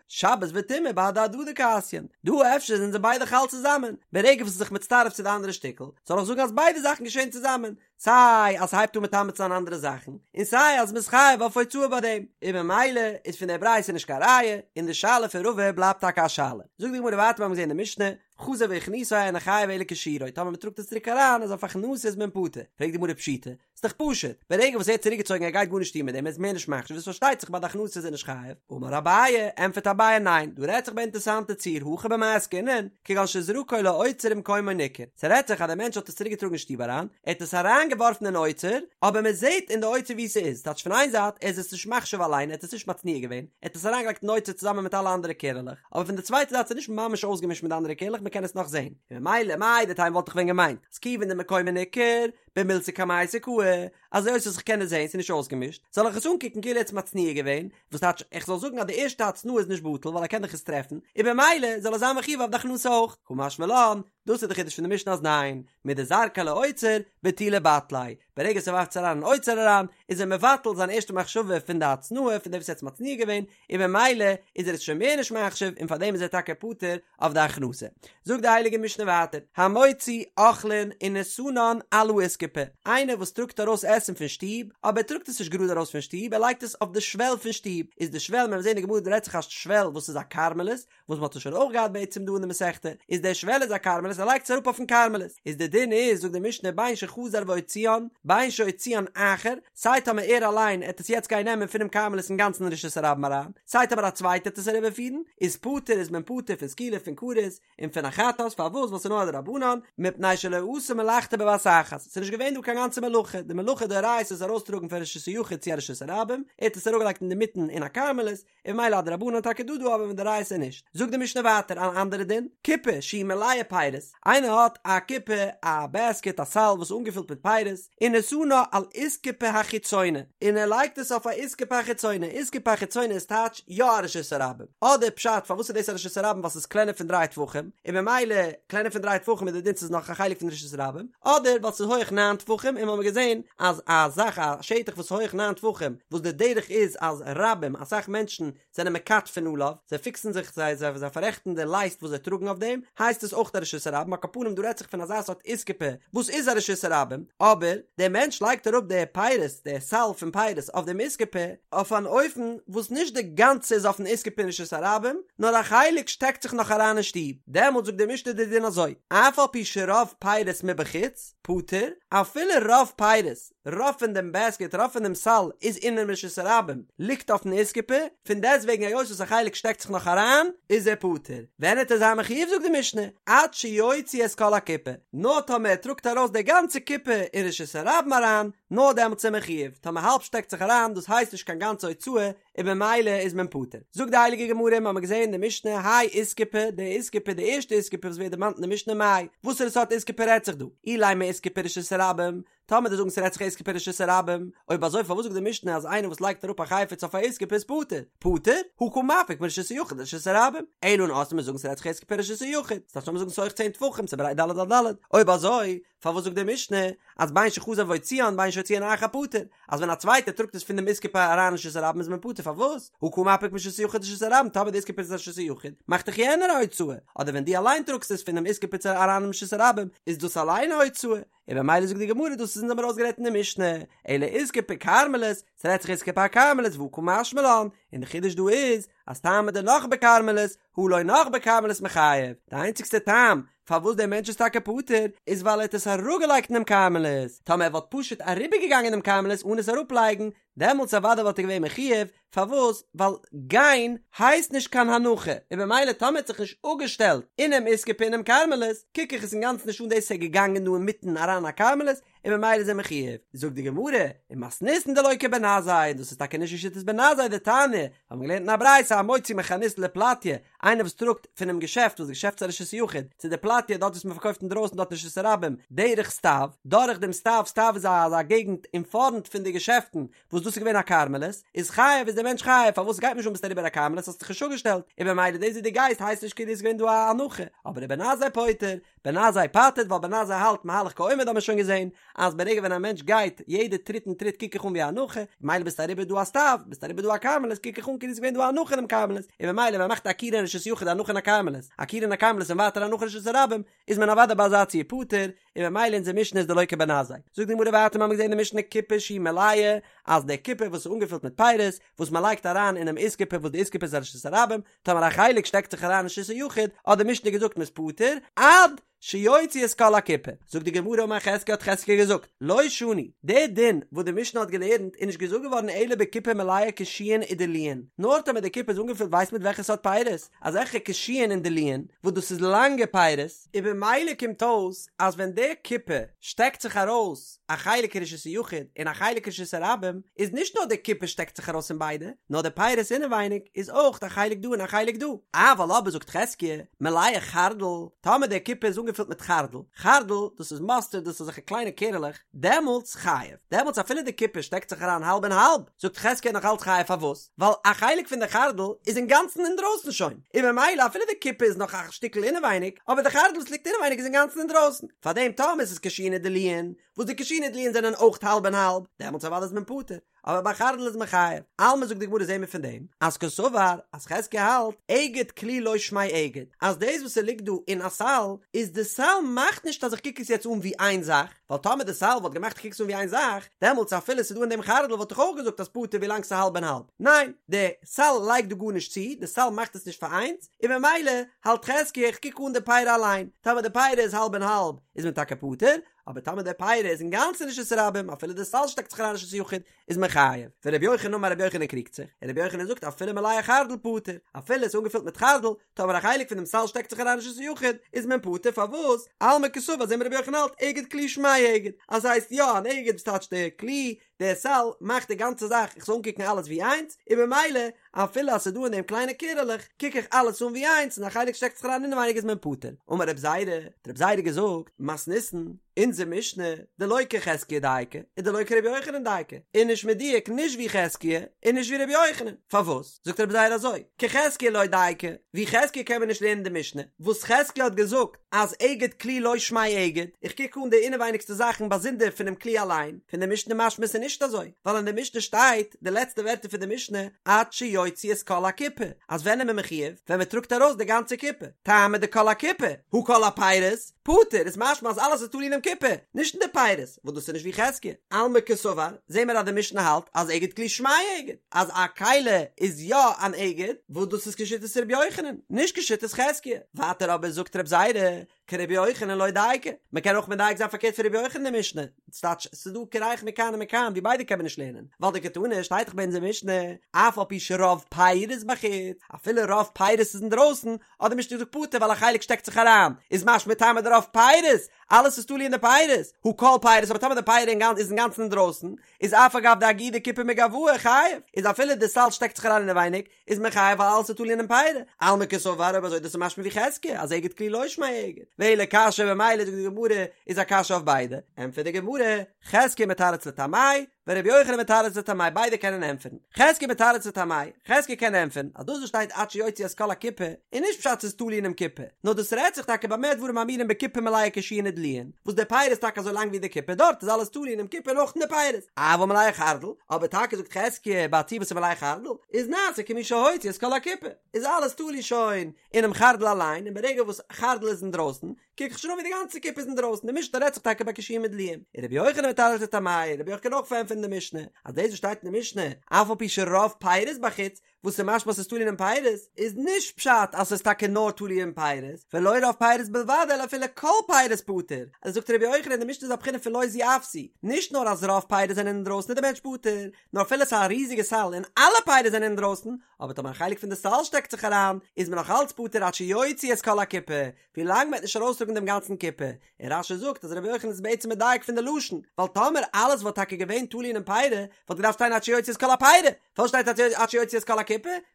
שבת וטומאה בהדי הדדי קאתיין, דא אפשר זענען זיי ביידע חל צוזאמען, ברגע וואס ס'איז זיך מצטרף צו די אנדערע שטיקל, זאל איך זאגן אז ביידע זאכן געשעהן צוזאמען, סיי אז ס'הייבט אן מטמא צו זיין אנדערע זאכן, און סיי אז מ'איז חייב אויף הוצאה ביי דעם, און ממילא איז פון דער ברייתא נישט קיין ראיה, און די שאלה פון רבא בלייבט טאקע א שאלה. זאגט די גמרא ווייטער מיר האבן געזען אין די משנה, חזר והכניסו אינו חייב אלא כשיעורו, טאמער מ'טראגט עס צוריק אריין איז אויף הכנסה איז מען פטור, פרעגט די גמרא פשיטא, ס'איז דאך פשוט, ברגע וואס ער האט צוריקגעצויגן ער גייט גארנישט טון מיט דעם ער איז מער נישט מחשיב איז פארשטייט זיך ביי די הכנסה איז ער נישט חייב, אמר אביי, ענטפערט אביי ניין, דא רעדט זיך ביי אינטערסאנטע ציור הכא במאי עסקינן, כגון שזרקו לאוצר ומקומו ניכר, ס'רעדט זיך אז דער מענטש האט עס צוריק געטראגן אין שטוב אריין, ער האט עס אריין געווארפן אין אוצר, אבער מען זעט אין די אוצר וואו ס'איז, טייטש פון איין זייט ער איז עס נישט מחשיב אליין ער האט עס נישט מצניע געווען, ער האט עס אריין געלייגט אין אוצר צוזאמען מיט אלע אנדערע קערעלעך, אבער פון די צווייטע זייט ס'איז נישט ממש אויסגעמישט מיט די אנדערע קערלעך מען קען עס נאך זען, און ממילא מהו דתימא וואלט איך ווען געמיינט אז כיוון דמקומו ניכר, במילתא קמייתא קאי, אז היות וואס איך קען עס זען ס'איז נישט אויסגעמישט, זאל איך עס אנקוקן כאילו ער האט עס מצניע געווען, וואס טייטש איך זאל זאגן אז די ערשטע הצנעה איז נישט בטל ווייל ער קען דאך עס טרעפן, און במילא זאל ער זיין מחויב אויף די הכנסה אויך, קא משמע לן, דאס איז די חידוש פון די משנה אז ניין, מדזרקיה לאוצר, בטולי בטליה, ברגע וואס ער ווארפט עס אריין אין אוצר אריין, איז ער מבטל זיין ערשטע מחשבה פון די הצנעה פון דעם וואס ער האט עס מצניע געווען, און במילא איז ער עס שוין מער נישט מחשיב און פארדעם איז ער טאקע פטור אויף די הכנסה. זאגט די הייליגע משנה ווייטער, המוציא אוכלין ונתנן על האיסקופה. איסקופה, איינער וואס טראגט ארויס עסן פון שטוב, אבער ער טראגט עס נישט גראד ארויס פון שטוב, ער לייגט עס אויף די שוועל פון שטוב, איז די שוועל, מען וועט זען אין די גמרא דא רעדט זיך א שוועל וואס איז א כרמלית, וואס מען האט עס שוין אויך געהאט בעצם דא אין די מסכתא, איז דער שוועל איז א כרמלית, ער לייגט עס אראפ אויפן כרמלית, איז די דין איז, זאגט די משנה, בין שחזר והוציאן, בין שהוציאן אחר, סיי טאמער ער אליין עט עס יעצט גיין נעמען פונעם כרמלית אינגאנצן אין רשות הרבים אריין, סיי טאמער א צווייטער עט עס אריבערפירן, איז פטור איז מען פטור פון סקילה פון כרת, און פון א חטאת, פארוואס? ווייל ס'איז נאר א דרבנן, מפני שלא עשה מלאכתו בבת אחת, ס'איז נישט געווען דא קיין גאנצע מלאכה, די מלאכה דאורייתא איז ארויסטראגן פון רשות היחיד צו א רשות הרבים, ער האט עס אראפגעלייגט אינדערמיטן אין א כרמלית, און ממילא א דרבנן טאקע דא דא אבער מדאורייתא נישט. זאגט די משנה ווייטער אן אנדערע דין, קופה שהיא מלאה פירות, איינער האט א קופה א בעסקעט א סל וואס איז אנגעפילט מיט פירות, ונתנה על איסקופה החיצונה, און ער לייגט עס אויף א איסקופה החיצונה, איסקופה החיצונה איז טייטש יא א רשות הרבים, אדער פשט פארוואס איז דאס א רשות הרבים ווייל ס'איז קלענער פון דריי טפחים, און ממילא קלענער פון דריי טפחים איז די דין ס'איז נאך א חלק פון רשות הרבים, אדער ווייל ס'איז הויעך ניין טפחים און מ'האמיר געזען אז א זאך א שטח וואס איז הויעך ניין טפחים וואס די דרך איז אז רבים אסאך מענטשן זענען מכתפין עליו, זיי פיקסן זיך זיי זיי זיי פאררעכטן די לייסט וואס זיי טראגן אויף דעם, הייסט עס אויך א רשות הרבים, על כל פנים דא רעדט זיך פון אזא סארט איסקופה וואס איז א רשות הרבים, אבער דער מענטש לייגט אראפ די פירות די סל פון פירות אויף דעם איסקופה אויף אן אופן וואס נישט די גאנצע איז אויפן איסקופה אין רשות הרבים, נאר א חלק שטעקט זיך נאך אריין אין שטוב, דעמאלט זאגט די משנה די דין אזוי, אף על פי שרוב פירות מבחוץ, פטור, אפילו רוב פירות, רוב פון דעם בעסקעט, רוב פון דעם סל, איז אינעם רשות הרבים, ליגט אויפן איסקופה, פון דעסטוועגן היות וואס א חלק שטעקט זיך נאך אריין, איז ער פטור. ווען עט ער זיין מחויב זאגט די משנה, עד שיוציא את כל הקופה, נאר טאמער ער טראגט ארויס די גאנצע קופה אין רשות הרבים אריין, נאר דעמאלטס איז ער מחויב, טאמער האלב שטעקט זיך אריין, דאס הייסט נישט קיין גאנצע הוצאה, און במילא איז מען פטור. זאגט די הייליגע גמרא, מיר האבן געזען אין די משנה, האי איסקופה, די איסקופה, די ערשטע איסקופה וואס ווערט דערמאנט אין די משנה מאי, וואסערע סארט איסקופה רעדט זיך דא? אילימא איסקופה רשות הרבים, טאמער דו זאגן ס'רעדט זיך איסקופה רשות הרבים, אויב אזוי פארוואס זאגט די משנה אז איינער וואס לייגט אראפ א חפץ אויף א איסקופה איז פטור? פטור? הא קא מפיק מרשות היחיד לרשות הרבים. אלא נאר אז מיר זאגן ס'רעדט זיך איסקופה רשות היחיד, ס'דארף שוין זאגן ס'הויך צען טפחים ס'ברייט ד' על ד', אויב אזוי פארוואס זאגט די משנה אז בין שחזר והוציאן בין שהוציאן אחר פטור, אז ווען א צווייטער טראגט עס פון דעם איסקופה אריין אין רשות הרבים איז מען פטור פארוואס? הא קא מפיק מרשות היחיד לרשות הרבים טאמער די איסקופה איז רשות היחיד מאכט דאך יענער א הוצאה, אדער ווען דו אליין טראגסט עס פונעם איסקופה אריין אין רשות הרבים איז דאס אליין א הוצאה, און במילא זאגט די גמרא דאס איז אונז האבן ארויסגערעדט אין די משנה, אלא איסקופה כרמלית, ס'רעדט זיך איסקופה כרמלית והא קא משמע לן, און די חידוש דא איז אז טעמא דנח בכרמלית, הא לא נח בכרמלית מיחייב, די איינציגסטע טעם פארוואס דער מענטש איז טאקע פטור איז ווייל ער האט עס אראפגעלייגט אינעם כרמלית, טאמער ער וואלט פשוט אריבערגעגאנגען דעם כרמלית אן עס אראפלייגן, דעמאלטס אוודאי וואלט ער געווען מחויב, פארוואס? ווייל גיין הייסט נישט קיין הנחה, און במילא טאמער האט זיך נישט אפגעשטעלט אינעם איסקופה אינעם כרמלית, קוק איך עס אינגאנצן נישט אן דאס איז ער געגאנגען דא אינמיטן אריין א כרמלית, און במילא איז ער מחויב. זאגט די גמרא, ומתניתין דלא כבן עזאי, און דאס איז טאקע נישט כשיטת בן עזאי דתניא, האבן מיר געלערנט אין א ברייתא המוציא מחנות לפלטיא, איינער וואס טראגט פונעם געשעפט וואס די געשעפט איז א רשות היחיד, צו די פלטיא דארט וואס מען פארקויפט אינדרויסן דארט אין רשות הרבים, דרך סטיו, דורך דעם סטיו, סטיו איז אזא געגנט אין פארנט פון די געשעפטן, וואס דאס איז געווען א כרמלית, איז חייב איז דער מענטש חייב, פארוואס גייט נישט אן ביסט אריבער א כרמלית האסט זיך נישט אפגעשטעלט, און במילא דאס ווי דו גייסט הייסט נישט כאילו איז געווען דא א הנחה, אבער ובן עזאי פוטר, בן עזאי פטר'ט ווייל בן עזאי האלט מהלך כעומד האט מען שוין געזען אז ברגע ווען א מענטש גייט יעדע טריט און טריט קוק איך אן ווי א הנחה, ממילא ביסט אריבער דא א סטיו, ביסט אריבער דא א כרמלית קוק איך אן כאילו איז געווען דא א הנחה אינעם כרמלית, און במילא ווען מ'מאכט עקירה אין רשות יחיד הנחה אין א כרמלית, עקירה אין א כרמלית און ווייטער הנחה אין רשות הרבים, איז מען אוודאי ביי אזא ציור פטור, און במילא אונזער משנה איז דלא כבן עזאי. זאגט די גמרא ווייטער מ'האמיר געזען אין די משנה קופה שהיא מלאה, אז די קופה וואס איז אנגעפילט מיט פירות, וואס מ'לייגט אריין אינעם איסקופה וואס די איסקופה איז א רשות הרבים, טאמער א חלק שטעקט זיך אריין אין רשות היחיד, האט די משנה געזאגט מ'איז פטור, עד שיוציא את כל הקופה. זאגט די גמרא אמר חזקיה האט חזקיה געזאגט, לא שנו, די דין וואס די משנה האט געלערנט איז נישט געזאגט געווארן אלא בקופה מלאה קישואין ודלועין, נאר טאמער די קופה איז אנגעפילט ווייסט מיט וועלכע סארט פירות, אזעלכע קישואין און דלועין, וואס דאס איז לאנגע פירות, און במילא קומט אויס אז ווען די קופה שטעקט זיך ארויס א חלק אין רשות היחיד און א חלק אין רשות הרבים, איז נישט נאר די קופה שטעקט זיך ארויס אין ביידע, נאר די פירות אינעווייניג איז אויך א חלק דא און א חלק דא. אבל אבער זאגט חזקיה, מלאה חרדל, טאמער די קופה איז אנגעפילט מיט חרדל, חרדל דאס איז מאסטערד דאס איז אזעלכע קליינע קערעלעך, דעמאלטס חייב, דעמאלטס אפילו די קופה שטעקט זיך אריין האלב און האלב, זאגט חזקיה נאך אלץ חייב פארוואס? ווייל א חלק פון די חרדל איז אינגאנצן אינדרויסן שוין, און ממילא אפילו די קופה איז נאך א שטיקל אינעווייניג, אבער די חרדל וואס ליגט אינעווייניג איז אינגאנצן אינדרויסן, פארדעם טאמער עס איז קישואין ודלועין, וואס די קישואין ודלועין זענען אויך האלב און האלב, דעמאלטס אוודאי איז מען פטור, אבער ביי חרדל איז מען חייב. אלמא זאגט די גמרא זעהן מיר פון דעם, אז קסבר, אז חזקיה האלט, אגד כלי לא שמיה אגד, אז דאס וואס ס'ליגט דא אין א סל, איז די סל מאכט נישט אז איך קוק עס יעצט אן ווי איין זאך, ווייל טאמער די סל וואלט געמאכט איך קוק עס אן ווי איין זאך, דעמאלטס אפילו ס'איז דא אין דעם חרדל וואלט איך אויך געזאגט אז פטור ווילאנג ס'איז האלב און האלב. ניין, די סל לייגט דא גארנישט צו, די סל מאכט עס נישט פאר איינס, און ממילא האלט חזקיה איך קוק אן די פירי אליין, טאמער די פירי איז האלב און האלב איז מען טאקע פטור, אבער טאמער די פירי איז אינגאנצן אין רשות הרבים אפילו די סל שטעקט זיך אריין אין רשות היחיד איז מען חייב. ורבי יוחנן אמר רבי יוחנן קריגט זיך, און רבי יוחנן זאגט אפילו מלאה חרדל פטור, אפילו עס איז אנגעפילט מיט חרדל, טאמער א חלק פון דעם סל שטעקט זיך אריין אין רשות היחיד איז מען פטור, פארוואס? אלמא קסבר זעהן מיר רבי יוחנן האלט אגד כלי שמיה אגד, אז ס'הייסט יא אן אגד וואס טייטש די כלי, דער סל מאכט די גאנצע זאך איך זאל אנקוקן אלעס ווי איינס, און במילא אפילו אז ס'איז דא אין דעם קליינע קערעלעך קוק איך אלעס אן ווי איינס און א חלק שטעקט זיך אריין אינעווייניג איז מען פטור. אמר רב זירא, האט רב זירא געזאגט, מתניתין, אונזער משנה, דלא כחזקיה דייקא, און דלא כרבי יוחנן דייקא, איז נישט מדויק נישט ווי חזקיה און נישט ווי רבי יוחנן, פארוואס? זאגט רב זירא אזוי, כחזקיה לא דייקא, ווי חזקיה קען מען נישט לערנען די משנה, וואס חזקיה האט געזאגט אז אגד כלי לא שמיה אגד, איך קוק אן די אינעווייניגסטע זאכן באזונדער פונעם כלי אליין, פון די משנה משמע ס'איז נישט אזוי, ווייל אין די משנה שטייט די לעצטע ווערטער פון די משנה עד שיוציא את כל הקופה, אז ווען איז מען מחויב? ווען מען טראגט ארויס די גאנצע קופה, טעמא דכל הקופה, הא כל הפירות, פטור, איז משמע אז אלעס איז תלוי אינעם קופה, נישט אין די פירות, וואס דאס איז נישט ווי חזקיה. אלמא קסבר, זעהן מיר אז די משנה האלט אז אגד כלי שמיה אגד, אז א כלי איז יא אן אגד, וואס דאס איז כשיטת ר' יוחנן, נישט כשיטת חזקיה. ווייטער אבער זאגט ר' זירא, כרבי יוחנן לא דייקא, מען קען אויך מדייק זיין פארקערט פון רבי יוחנן די משנה, ס'טייטש ס'איז דא קרח מכאן ומכאן ווי ביידע קען מען נישט לערנען, ווייל דקתני שטייט דאך ביי אונזער משנה, אף על פי שרוב פירות בחוץ, אפילו רוב פירות איז אינדרויסן, האט די משנה געזאגט פטור ווייל א חלק שטעקט זיך אריין, איז משמע טעמא דרוב פירות, אלעס איז תלוי אין די פירות, הא כל פירות, אבער טאמער די פירי איז אינגאנצן אינדרויסן, איז אף על גב דאגידא כיפי מגואי חייב, איז אפילו די סל שטעקט זיך אריין אינעווייניג, איז מען חייב ווייל אלעס איז תלוי אינעם פירי, אלמא קסבר אויב אזוי דאס איז משמע ווי חזקיה אז אגד כלי לא שמיה אגד, ואלא קשיא במילא זאגט די גמרא איז א קשיא אויף ביידע, ענטפערט די גמרא, חזקיה מתרץ לטעמיה, ורבי יוחנן מתרץ לטעמיה ביידע קענען ענטפערן, חזקיה מתרץ לטעמיה, חזקיה קען ענטפערן אז דאס וואס שטייט עד שיוציא את כל הקופה איז נישט פשט ס'איז תלוי אינעם קופה, נאר דאס רעדט זיך טאקע במה דברים אמורים בקופה מלאה קישואין ודלועין, וואס די פירות איז טאקע אזוי לאנג ווי די קופה דארט איז אלעס תלוי אינעם קופה און אויך אין די פירות, אבל מלאה חרדל, אבער טאקע זאגט חזקיה ביי א ציור וואס איז מלאה חרדל, איז נעשה כמי שהוציא את כל הקופה, איז אלעס תלוי שוין אינעם חרדל אליין, און ברגע וואס חרדל איז אינדרויסן, קוק איך שוין אן ווי די גאנצע קופה איז אינדרויסן, די משנה רעדט זיך טאקע ביי קישואין ודלועין, און רבי יוחנן מתרץ לטעמיה, רבי יוחנן קען אויך פארענטפערן די משנה, אז דאס וואס שטייט אין די משנה, אף על פי שרוב פירות בחוץ, וואס איז משמע אז ס'איז תלוי אינעם פירות, איז נישט פשט אז ס'איז טאקע נאר תלוי אין פירות, ולא רוב פירות בלבד אלא אפילו כל פירות פטור, אזוי זאגט רבי יוחנן די משנה איז א בחינה פון לא זו אף זו, נישט נאר אז רוב פירות זענען אינדרויסן איז די מענטש פטור, נאר אפילו ס'איז א ריזיגע סל און אלע פירות זענען אינדרויסן, אבער טאמער א חלק פון די סל שטעקט זיך אריין, איז מען נאך אלץ פטור עד שיוציא את כל הקופה, ווילאנג מ'וועט נישט ארויסטראגן דעם גאנצן קופה, און רש"י זאגט אז רבי יוחנן איז בעצם מדייק פון די לשון, ווייל טאמער אלעס וואלט טאקע געווען תלוי אינעם פירי, וואלט געדארפט שטיין עד שיוציא את כל הפירי, פארוואס שטייט עד שיוציא את כל הקופה?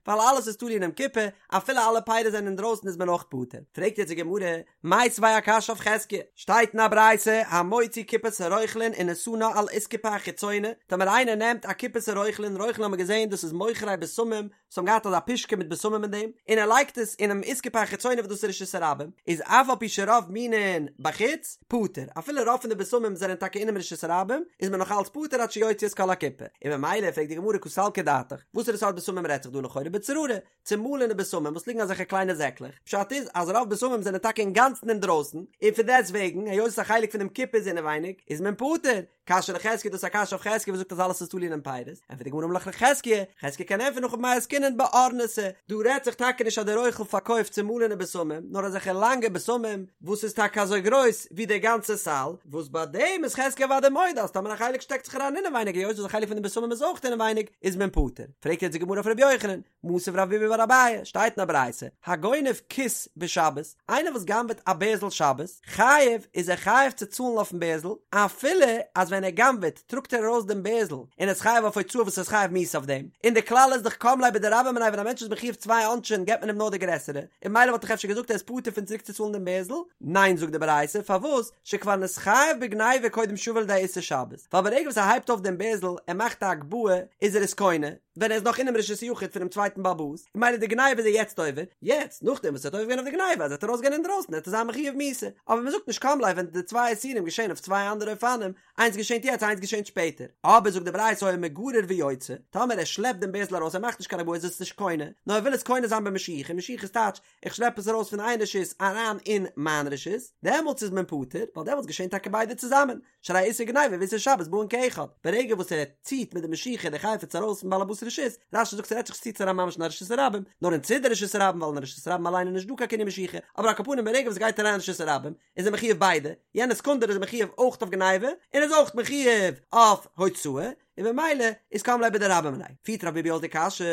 ווייל אלעס איז תלוי אינעם קופה, אפילו אלע פירות זענען אינדרויסן איז מען אויך פטור. פרעגט יעצט די גמרא, מיתיבי א קשיא אויף חזקיה, שטייט אין א ברייתא, המוציא קופת הרוכלין ונתנה על אסקופה החיצונה, טאמער איינער נעמט א קופת הרוכלין, רוכלין האבן מיר געזען דאס איז מוכרי בשמים, וואס האבן געהאט אזא פושקע מיט בשמים אין דעם, און ער לייגט עס אינעם אסקופה החיצונה וואס דאס איז רשות הרבים, איז אף על פי שרוב מינין בחוץ, פטור, אפילו רוב פון די בשמים זענען טאקע אינעם רשות הרבים, איז מען נאך אלץ פטור עד שיוציא את כל הקופה. און ממילא פרעגט די גמרא קא סלקא דעתך, וואסערע סארט בשמים רעדט זיך דא לכאורה בצררי, צומאלענע בשמים וואס ליגן אזעלכע קליינע זעקלעך, פשט איז אז רוב בשמים זענען טאקע אינגאנצן אינדרויסן, און פון דעסט וועגן, היות א חלק פונעם קופה איז אינעווייניג, איז מען פטור, קשיא לחזקיה דאס איז א קשיא אויף חזקיה וואס זאגט אז אלעס איז תלוי אינעם פירות, ענטפערט די גמרא אמר לך חזקיה, חזקיה קען ענטפערן הכא במאי עסקינן באורנתא, דא רעדט זיך טאקע נישט אז דער רוכל פארקויפט צומאלענע בשמים, נאר אזעלכע לאנגע בשמים וואס איז טאקע אזוי גרויס ווי דער גאנצע סל, וואס ביי דעם איז חזקיה אוודאי מודה אז טאמער א חלק שטעקט זיך אריין אינעווייניג היות וואס א חלק פון די בשמים איז אויך אינעווייניג איז מען פטור, פרעגט יעצט די גמרא אויף ר' יוחנן, מתיב רב ביבי בר אביי, שטייט אין א ברייתא, הגונב כיס בשבת, איינער וואס גנב'עט א בערזל שבת, חייב, איז ער חייב צו צאלן אויפן בערזל, אפילו אז ווען ער גנב'עט טראגט ער ארויס דעם בערזל, און ער איז חייב אויף הוצאה וואס ער איז חייב מיתה אויף דעם, און די כלל איז דאך קם ליה בדרבה מיניה ווען א מענטש איז מחויב צוויי עונשים געבט מען אים נאר די גרעסערע, און ממילא וואלט איך אפשר געזאגט ער איז פטור פון צוריק צו צאלן דעם בערזל, ניין זאגט די ברייתא, פארוואס, שכבר נתחייב בגניבה קודם שיבא לידי איסור שבת, ווייל ברגע וואס ער הייבט אויף דעם בערזל, ער מאכט א הגבהה, איז ער עס קונה. ווען ער איז נאך אינעם רשות היחיד פונעם צווייטן בעל הבית, און ממילא די גניבה איז ער יעצט עובר, יעצט נאכדעם וואס ער האט עובר געווען אויף די גניבה אז ער וועט ארויסגיין אינדרויסן וועט ער זיין מחויב מיתה, אבער מען זאגט נישט קם ליה ווען די צוויי איסורים געשען אויף צוויי אנדערע אופנים, איינס געשענט יעצט איינס געשענט שפעטער, אבער זאגט די ברייתא היה מגרר ויוצא, טאמער ער שלעפט דעם בערזל ארויס ער מאכט נישט קיין הגבהה איז עס נישט קונה, נאר ער וויל עס קונה זיין במשיכה, משיכה איז טייטש איך שלעפ עס ארויס פון איין רשות אריין אין מיין רשות, דעמאלטס איז מען פטור, ווייל דעמאלטס געשענט טאקע ביידע צוזאמען, שהרי איסור גניבה ואיסור שבת באין כאחד, ברגע וואס ער ציט מיט די משיכה די חפץ ארויס פון בעל הבית רשות, רש"י זאגט ס'רעדט זיך נישט ציט עס אריין ממש אין א רשות הרבים, נאר אין צידי רשות הרבים ווייל אין רשות הרבים אליין איז נישט דא קיין קנין משיכה, אבער על כל פנים ברגע וואס ס'גייט אריין אין רשות הרבים איז ער מחויב ביידע, יענע סעקונדע איז ער מחויב אויך אויף גניבה און איז אויך מחויב אויף הוצאה, און במילא איז קם ליה בדרבה מיניה. פירט רב ביבי אויס די קשיא,